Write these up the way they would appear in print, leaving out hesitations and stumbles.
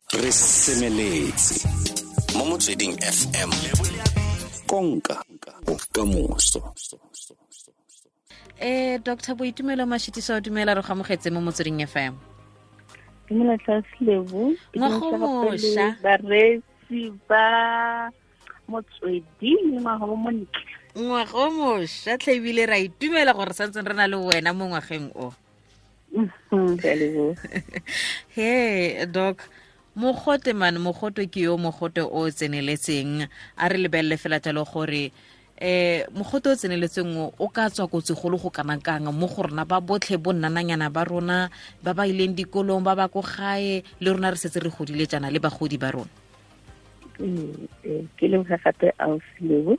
Re semeletse mo Motsweding FM, konka bokamoso. Dr. Boitumelo Mashitiso, dumela, re go amogetse mo Motsweding FM. Dumela Tlhaslebo. Ngwago mošwa. Bareetsi ba Motsweding, ngwaga o montle. Ngwaga o mošwa tlhe, ebile ra itumela gore santseng re na le wena mo ngwageng o. Ke a leboga. He doc, mogote man, mogote ke yo, mogote o tseneletseng. A re lebelele fela jalo gore mogote o tseneletseng o ka tswa kotsi golo go kana kang mo go rona ba botlhe, bo nnananyana ba rona ba ba ileng dikolong, ba ba ko gae, le rona re setse re godile jaana, le bagodi ba rona. Ke leboga gape, ausi.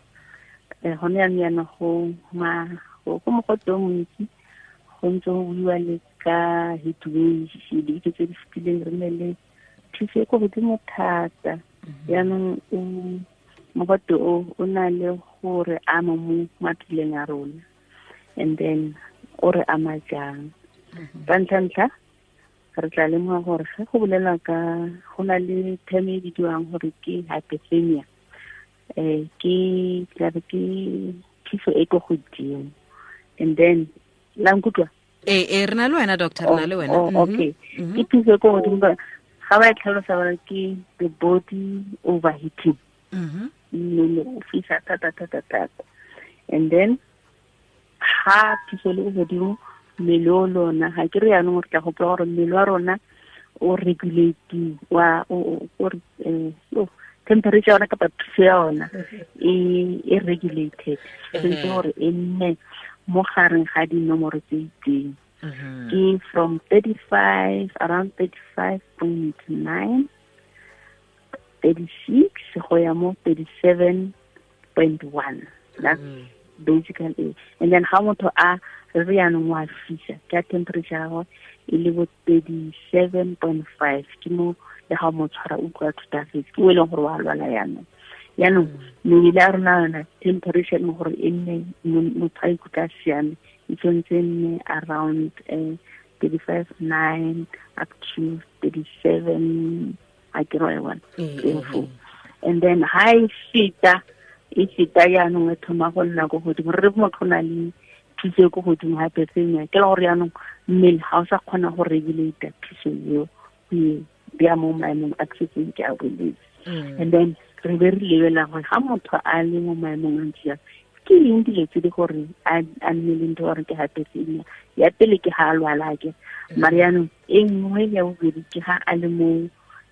Gone yanong yana go mogote o montsi, go ntse go buiwa le ka heat wave. Dibeke tse di fetileng re ne le thuso e ko godimo thata. Yaanong o mogote o o na le gore ama mo mapheleng a rona, and then o re ama jang? Ka ntlha-ntlha, re tla lemoga gore ge go bolelwa ka, go na le term e bidiwang gore ke hyperthermia. Ke tlabe ke phiso e ko godimo, and then la nkutlwa? Ee, re na le wena, doctor, re na le wena. Oh, okay. Ke phiso e ko godimo, ga ba e tlhalosa ba re ke the body overheating. Mmele o fisa thata thata thata, and then ha phiso le ko godimo, mmele o lona ga ke re yaanong re tla gopola gore mmele wa rona o regulate wa o temperature ya ona kapa phiso ya ona e regulated, sentse gore e nne mo gareng ga dinomoro tse itseng. Ke from 35, around 35.9, 36 go ya mo 37.1. That's basically it. And then ga motho a re yaanong wa fisa, ke a temperature ya gagwe e le bo 37.5, ke mo le ga mo tshwara utlwa thutafetse, ke o e leng gore wa lwala. Yaanong mebele ya rona yona, temperature e leng gore e nne motho a ikutlwa a siame, e tshwanetse e nne around 35.9 up to 37, a ke re one teng. And then ha e feta yaanong, e thoma go nna ko godimo, re re motho o na le phiso e ko godimo, hyperthermia, ke la gore yaanong mmele ga o sa kgona go regulate phiso eo, go e bea mo maemong a ke setseng ke a boletse. And then re be re lebelela gore ga motho a le mo maemong a ntse jang, ke eng dilo tse di gore a nne le ntho gore ke hyperthermia. Ya pele ke ga a lwala, ke mare yaanong e nngwe ya bobedi ke ga a le mo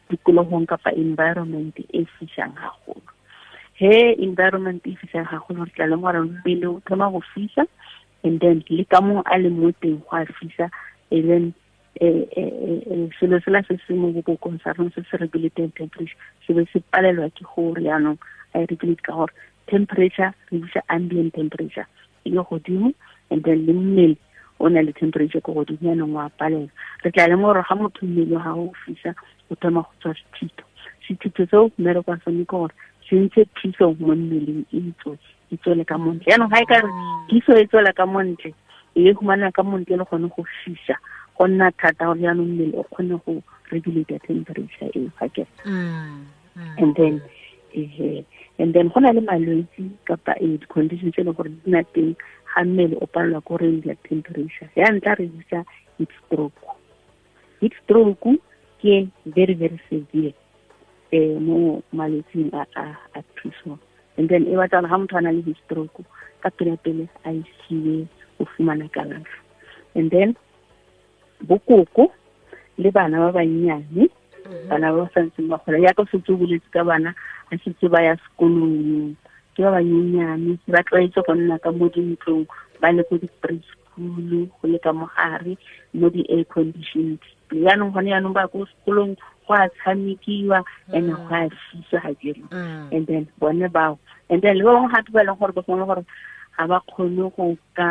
tikologong kapa environment e fisang gagolo. He environment e fisang gagolo, re tla le gore mmele o thoma go fisa, and then le ka mo a le mo teng go a fisa, and then selo sela se se mo bobokong sa rona se se regulating temperature se be se palelwa ke gore yaanong a e regulate, ka gore temperature re bitsa ambient temperature e le godimo, and then le mmele o na le temperature ko godimo, yaanong wa palelwa. Re tla leng gore ga motho mmele wa gago o fisa, o thoma go tswa sethito. Sethito seo, mmereko wa sone ke gore se ntshe phiso mo mmeleng, e tswe, e tswele ka montle. Yaanong ga e ka re phiso e tswela ka montle, e humana ka montle le gone go fisa, go nna thata gore yaanong mmele o kgone go regulate temperature eo, ga ke? And then go na le malwetse kapa di-condition tse e leng gore di na teng ga mmele o palelwa ko regulate temperature. Ya ntlha re bitsa heat stroke. Heat stroke ke very very severe mo malwetsing a phiso, and then e batla gore ga motho a na le heat stroke, ka pele pele a isiwe go fumana kalafo. And then bokoko le bana ba bannyane, bana ba ba santseng ba gola, yaka o setse o boletse ka bana a setse ba ya sekolong, ke ba banyenyane, ba tlwaetse go nna ka mo dintlong, ba le ko di-preschool, go le ka mogare mo di-air conditioned. Yaanong gone yaanong ba ko sekolong, go a tshamekiwa and go a fisa ga jere. And then bone bao, and then le ba bangwe gape ba e leng gore ba gongwe gore ga ba kgone go ka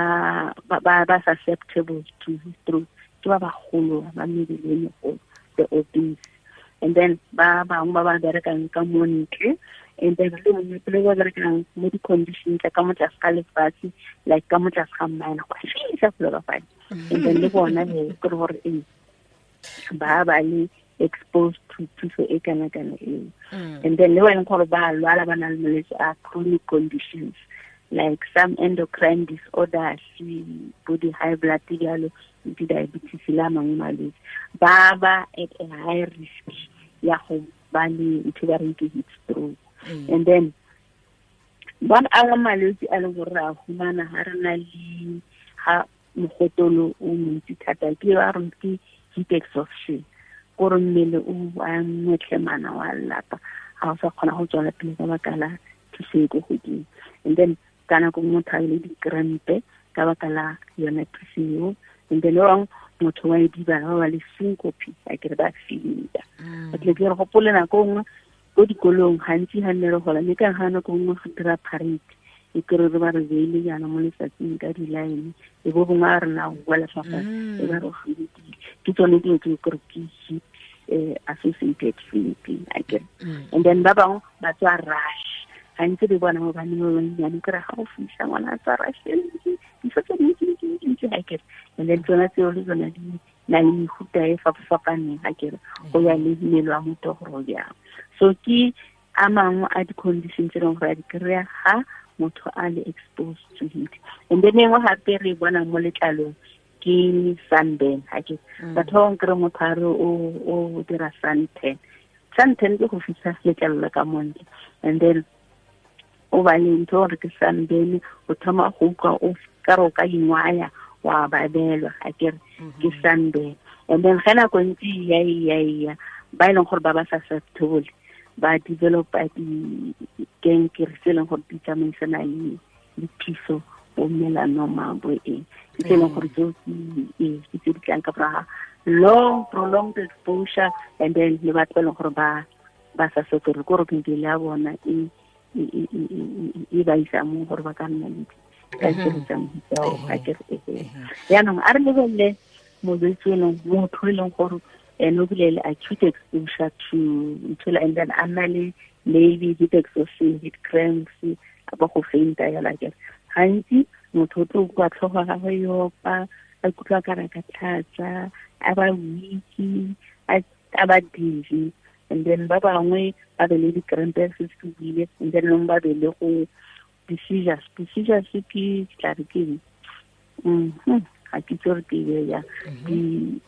ba susceptible to stroke, ke ba bagolo ba mebele e megolo, the obese, and then ba bangwe ba ba berekang ka mo ntle, and then le mongwe le ba berekang mo di-condition tsa ka mo tlase ga lefatshe, like ka mo tlase ga mine, go a fisa felo ka fane. And then le bona he ke gore ee ba ba le exposed to thuso e kana kana eo. And then le ba e leng gore ba lwala, ba na le malwetse a chronic conditions like some endocrine disorders, bo di-high blood jalo, di-diabetes le a mangwe malwetse, ba ba at a high risk ya go ba le ntho ba reng ke heat stroke. And then ba angwe malwetse a leng gore re a humana ga re na le ga mogotolo o montsi thata, ke ba reng ke heat exhaustion, kore mmele o a ngwetlhemana wa lapa, ga o sa kgona go tswela pele ka baka la thuso e ko godimo. And then ka nako nngwe motho a le dikrempe ka baka la yone thuso eo. And then ba bangwe motho wa e dibala, ba ba le syncope, a kere ba fainta. Ba tle ke re gopole nako nngwe ko dikolong gantsi ga nne re gola, mme ka ga nako nngwe go dira parade, e kry re ba re beile jaana mo letsatsing ka di-line, e bo bongwe a rena go boela fa fatshe, e ba re faintile. Ke tsone dilo tse kore ke heat associated fainting, a kere. And then ba bangwe ba tswa rush, gantsi re bona mo baneng ba bannyane, kry ga go fisa ngwana a tswa rush e ntsi, diso tse dintsi, dintsi, dintsi, a kere. And then tsona tseo le tsona di na le mefuta e fapafapaneng, a kere, go ya le mmele wa motho gore o jang. So ke a mangwe a di-condition tse e leng gore a di kry-a ga motho a le exposed to heat. And then engwe gape re bona mo letlalong ke sunburn, ha ke batho ba bangwe kry motho a re o dira suntan. Suntan ke go fisa letlalo la ka montle, and then o ba le ntho gore ke sunburn, o thoma go utlwa o ka re o ka ingwaya wa babelwa, ha ke re ke sunburn. And then ge nako ntse e ya, e ya, e ya, ba e leng gore ba ba susceptible ba developa dikankere tse e leng gore di tsamaisana le phiso, bo melanoma, bo eng, ke tse e leng gore tseo ke tse di tlang ka morago ga long prolonged exposure. And then le batho ba e leng gore ba sa sotore, ke gore mebele ya bona e ba isa mo gore ba ka nna le dikankere tsa mofuta oo, ga ke re, ehe. Jaanong a re lebelele molwetse e leng motho e leng gore ene o bile le acute exposure to ntho, and then a nna le maybe heat exhaustion, heat cramps, a ba go fainta yalo, a kere. Gantsi motho o tlo utlwa tlhogo ya gagwe e opa, a ikutlwa ka re ka tlhatsa, a ba weak, a ba dizzy. And then ba bangwe ba be le di-cramps se se buile, and then bangwe ba be le go di-seizures. Di-seizures ke tla re ke eng? Ga ke itse gore ke e beye jang.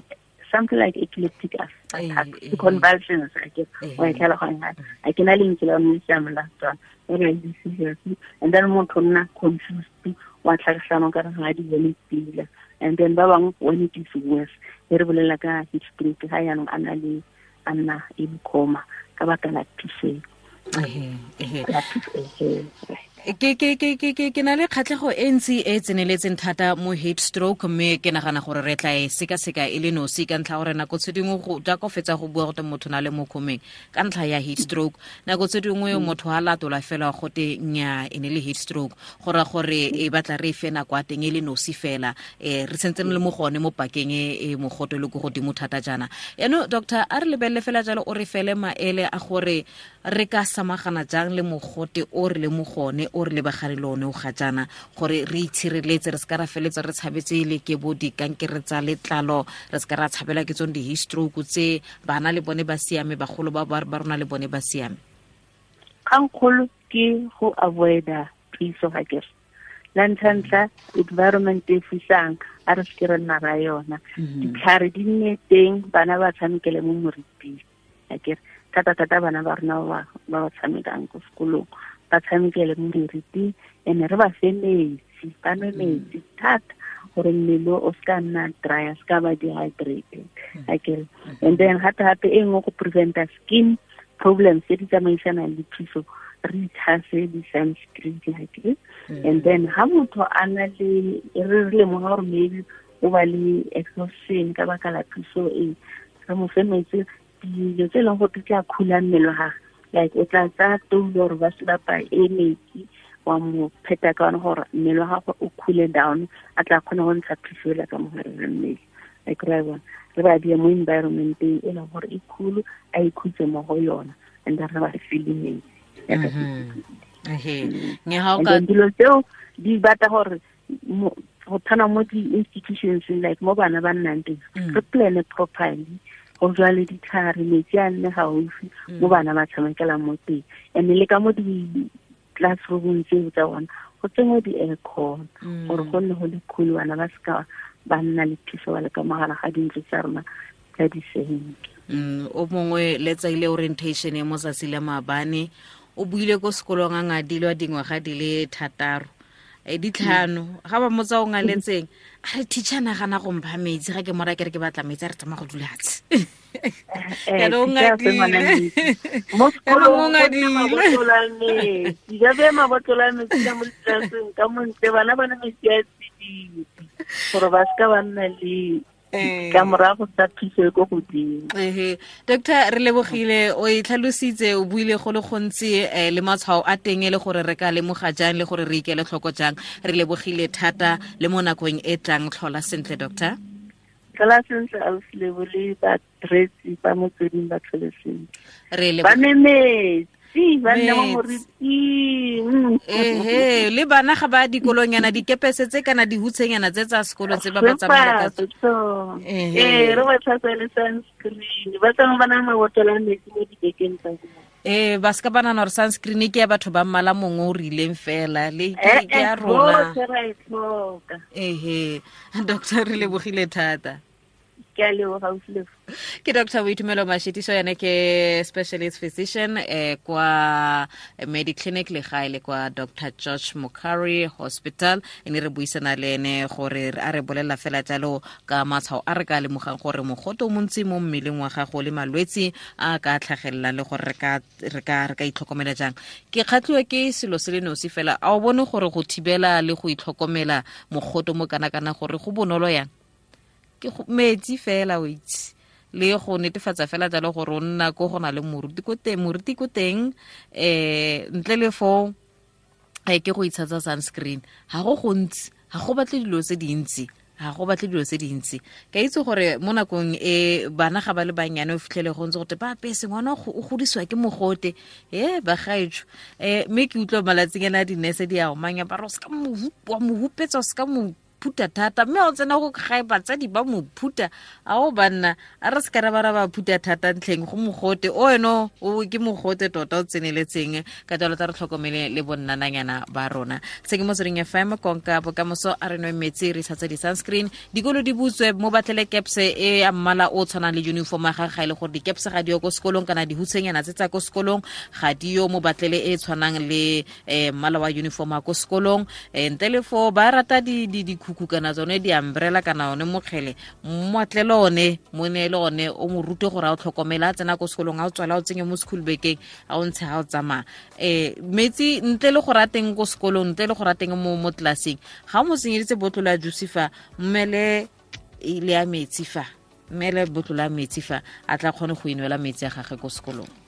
Something like epileptic attack, convulsions, I guess. Wa e tlhaloganya? A ke na le lentswe la yone le siameng la Setswana. Ba re di-seizures. And then motho o nna confused, wa tlhagisana o ka re ga di bone pila. And then ba bangwe, when it is worse, e re bolela ka heat stroke, ga jaanong a na le, a nna in coma ka baka la phiso. La phiso, ehe, right. Ke na le kgatlhego e ntsi e tseneletseng thata mo heat stroke, mme ke nagana gore re tla e sekaseka e le nosi ka ntlha gore nako tse dingwe go jaaka o fetsa go bua gote motho na le mo khomeng ka ntlha ya heat stroke, nako tse dingwe motho a latola fela gote nya e ne le heat stroke, go ra gore e batla re e fe nako ya teng e le nosi fela, re sentse re le mo gone mo pakeng e mogote le ko godimo thata jaana. Yaanong doctor, a re lebelele fela jalo, o re fele maele a gore re ka samagana jang le mogote o re le mo gone, o re lebagane le one o ga jaana, gore re itshireletse, re se ka ra feletsa re tshabetse le ke bo dikankere tsa letlalo, re se ka ra tshabela ke tsone di-heat stroke tse bana le bone ba siame, bagolo ba rona le bone ba siame. Kgangkgolo ke go avoida phiso ga kere. La ntlha-ntlha, environment e fisang, a re seke re nna ra yona. Ditlhare di nne teng, bana ba tshamekele mo moriting. A kere, thata-thata bana ba rona ba ba tshamekang ko sekolong, ba tshamekele mo moriting, and re ba fe metsi, ba nwe metsi thata, gore mmele o se ka nna dry, a se ka ba dehydrated. A kere. And then gape-gape e nngwe go preventa skin problems tse di tsamaisanang le phiso, re itshase di-sunscreen, a kere. And then ha motho a na le, re lemoga gore maybe o ba le exhaustion ka baka la phiso e, re mo fe metsi, dilo tse e leng gore di tla khula mmele wa gagwe, like o tla tsaya toulo gore ba se bapa e metsi, wa mo pheta ka yone gore mmele wa gagwe o cool down, a tla kgona go ntsha phiso ela ka mogare ga mmele. A kry-a bona, re ba beye mo environmenteng e leng gore e cool, a ikhutse mo go yona, and then re ba file metsi. Nge ha o And ka then dilo tseo di batla gore go tshwana mo di-institutions like mo bana ba nnang teng, re plan-e properly Go jwale ditlhare, metsi a nne gaufi mo bana ba tshamekelang mo teng. And le ka mo di-classroomong tseo tsa bona go tsenngwe di-aircon gore go nne go le cool, bana ba seka ba nna le thuso ba le ka mogala ga dintlo tsa rona tsa disenke. O mongwe letsaile orientation e mo tsatsi la maabane o buile ko sekolong a ngadilwa dingwaga di le 6 ditlhano ga ba motsa o ngaletseng a re teacher nagana go mpha metsi ga ke mora ke re ke batla metsi a re tsamaya go dula fatshe. Yaanong o ngadile mo sekolong, metsi ba bea mabotlolo a metsi ka mo ditlelaseng ka montle, bana ba ne metsi a tsididi gore ba seka ba nna le ka morago tsa phiso e ko godimo. Ehe, doctor, re lebogile, o e tlhalositse, o buile go le gontsi le matshwao a teng e le gore re ka lemoga jang le gore re ikele tlhoko jang. Re lebogile thata, le mo nakong e tlang. Tlhola sentle, doctor. Tlhola sentle, ausi Lebo, le bareetsi ba Motsweding ba tlhole sentle. Re ba memetse ba nne mo moriting. Ehe, le bana ga ba dikolonyana, dikepese tse kana dihutshenyana tse tsa sekolo tse ba ba tsamaela ka tsone. Ee, re ba tlhatswa le sunscreen, ba tsamaya ba na mabotlolo a metsi mo dibekeng tsa bona. Ee, ba seka ba nana gore sunscreen ke ya batho ba mmala mongwe o rileng fela, le ke ya rona. Botlhe ra e tlhoka. Ehe, doctor, re lebogile thata. Ke a leboga, ausi Lebo. Ke Dr Boitumelo Mashitiso, yane ke specialist physician kwa Mediclinic Legae le kwa Dr George Mukhari Hospital. E ne re buisana le ene gore a re bolelela fela jalo ka matshwao a re ka lemogang gore mogote o montsi mo mmeleng wa gago le malwetsi a ka tlhagelelang le gore re ka itlhokomela jang. Ke kgatlhiwa ke selo se le nosi fela, a o bone gore go thibela le go itlhokomela mogote mo kana-kana gore go bonolo yang? Ke metsi fela o itse, le go netefatsa fela jalo gore o nna ko go na le moruti ko teng, moruti ko teng, ntle le foo ke go itshatsa sunscreen. Ga go gontsi, ga go batle dilo tse dintsi, ga go batle dilo tse dintsi. Ka itse gore mo nakong e bana ga ba le bannyane o fitlhele go ntse gote ba apese ngwana o godisiwa ke mogote, bagaetsho. Mme ke utlwa malatsing ana di-nurse di a omanya ba re o seka wa mo hupetsa, o seka mo phuta thata, mme o tsena go gae batsadi ba mo phuta. A o banna, a re se ka ra ba ra ba phuta thata ntlheng go mogote o eno, o ke mogote tota o tseneletseng. Ka jalo tla re tlhokomele le bonnananyana ba rona. Se ke Motsweding FM, konka bokamoso. A re nwe metsi, re tshatse di-sunscreen, dikolo di butswe, mo batlele kepse e ya mmala o tshwanang le uniform ya gagwe. Ga e le gore dikepse ga di yo ko sekolong kana dihutshenyana tse tsa ko sekolong ga di yo, mo batlele e tshwanang le mmala wa uniform ya ko sekolong. Ntle le foo ba rata dikhukhu kana tsone di-umbrella kana one mokgele, mmoatlele one, mo neele one, o mo rute gore a o tlhokomele a tsena ko sekolong, a o tswala, a o tsenye mo school bekeng, a o ntshe ga o tsamaya. Metsi ntle le gore a teng ko sekolong, ntle le gore a teng mo tlelaseng, ga o mo tsenyeditse botlolo ya juice fa, mmele le ya metsi fa, mmele botlolo ya metsi fa, a tla kgone go inwela metsi a gagwe ko sekolong.